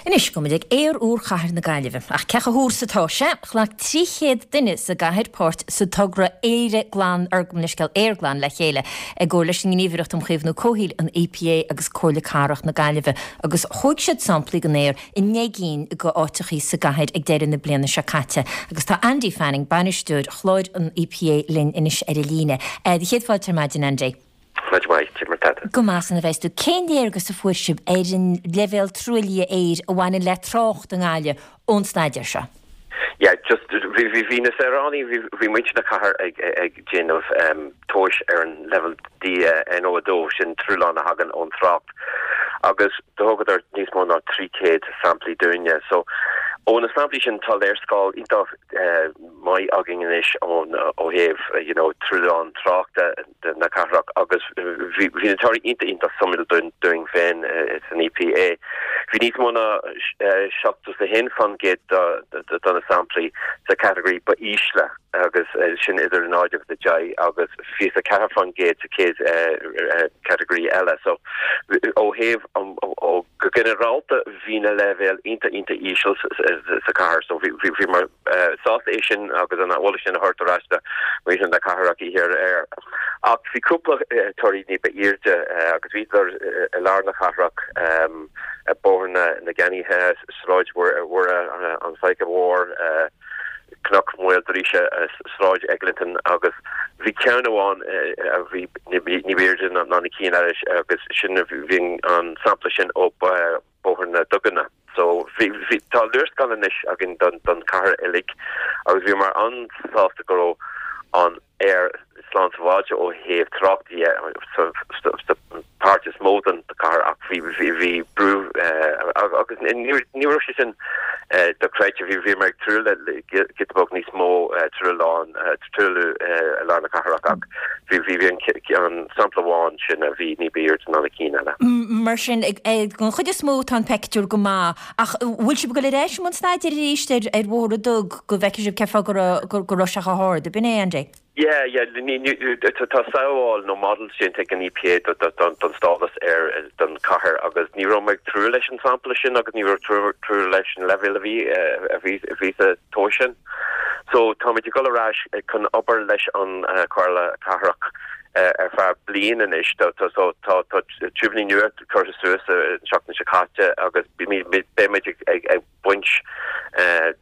Anois, gabhfaidh muid ag aer úr chathair na Gaillimhe. Ach cé chomh húr is atá sé? Ghlac 300 duine sa gcathair páirt sa togra Éire Glan, or gabh mo leithscéal, Aer Glan le chéile, i gcomhar leis an nGníomhaireacht um Chaomhnú Comhshaoil, an EPA, agus Comhairle Cathrach na Gaillimhe, agus thóg siad samplaí den aer i ndeich gcinn de áiteachaí sa gcathair ag deireadh na bliana seo caite. Agus tá Andy Fanning, bainisteoir chláir an EPA linn anois ar an líne. Do chéad fáilte ar maidin, Andy. Maidin mhaith, cad é mar tá tú? Go maith san a bheas tú. Cén léargas a fuair sibh ar an leibhéal truaillithe aeir a bhaineann le trácht i nGaillimh ón staidéar seo? Yeah, just bhí bhí bhí na saoránaigh, bhí bhí muintir na cathair ag ag déanamh tomhais ar an leibhéal NO2, sin truailleán a thagann ón trácht agus do thugadar níos mó ná 300 samplaí dúinne. So ó na samplaí sin tá léarscáil iontach maith againn anois ón ó thaobh you know truailleán tráchta na cathrach agus bhí na torthaí iontach iontach suimiúil dúinn féin san EPA. Bhí níos mó ná 71% de na samplaí sa category ba ísle agus sin idir 0 agus 10 agus 24% sa chéad category eile. So ó thaobh ó go ginearálta bhí na leibhéil iontach iontach íseal sa chathair so bhíomar sásta é sin agus an eolas sin a thabhairt ar ais do mhuintir na cathrach oíche aréir. Ach bhí cúpla torthaí ní ba airde agus bhíodar i lár na cathrach, Bóthar na gCeannaithe, Sráid Mhuire, an Faiche Mhór, Cnoc Mhaoildríse, Sráid Eglinton agus bhí ceann amháin a bhí ní ba airde ná na cinn eile agus sin bhí an sampla sin ó Bóthar na Duganna. So bhí, bhí, tá léarscáil anois againn don, don chathair uilig agus bhíomar an-sásta go raibh an aer slán sábháilte ó thaobh trácht dhe sa, sa, sa páirt is mó den chathair ach bhí, bhí, bhí brú agus ní, ní raibh sé sin dochreidte. Bhí, bhíomar ag súil le giota beag níos mó truailleán, truailliú i lár na cathrach ach bhí, bhí, bhí an, an sampla amháin sin a bhí ní b'airde ná na cinn eile. Mar sin, den chuid is mó tá an peictiúr go maith ach bhfuil sibh ag dul ar ais i mbun staidéir arís ar ar Bhóthar na dTug go bhfeicfidh sibh cén fáth go raibh go raibh sé chomh hard, ab in é, Andy? Yeah, yeah, ní, ní, tá samhail nó model déanta ag an EPA do, do, don, don stádas aeir don chathair agus ní raibh mé ag tnúth leis an sampla sin agus ní raibh tnúth leis an leibhéal a bhí, a bhí, a bhí sa tomhas sin. So táimid ag dul ar ais chun obair leis an Chomhairle Cathrach ar feadh bliain anois. So tá tiúibíní nua curtha suas an tseachtain seo caite agus beimid ag baint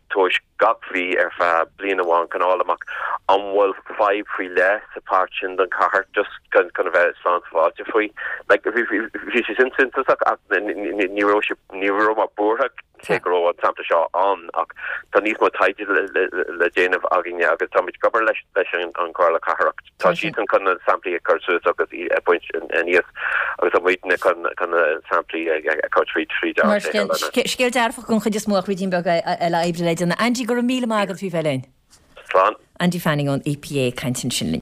tomhais gach mhí ar feadh bliain amháin chun fháil amach an bhfuil fadhb faoi leith sa pháirt sin den chathair just chun a bheith slán sábháilte faoi. Like bhí sé sin suntasach ach ní raibh sé ní raibh mé buartha cé go raibh an sampla seo ann ach tá níos mó taighde le déanamh againne agus táimid ag obair leis leis an Chomhairle Cathrach. Tá siadsan chun na samplaí a chur suas agus a bhaint aníos agus tá muidne chun chun na samplaí a chur tríd tríd ár Mar sin, scéal dearfach den chuid is mó ach ruidín beag eile oibre le déanamh. Andy, go raibh míle maith agat faoi bheith linn. Slán. Andy Fanning ón EPA ag caint ansin linn.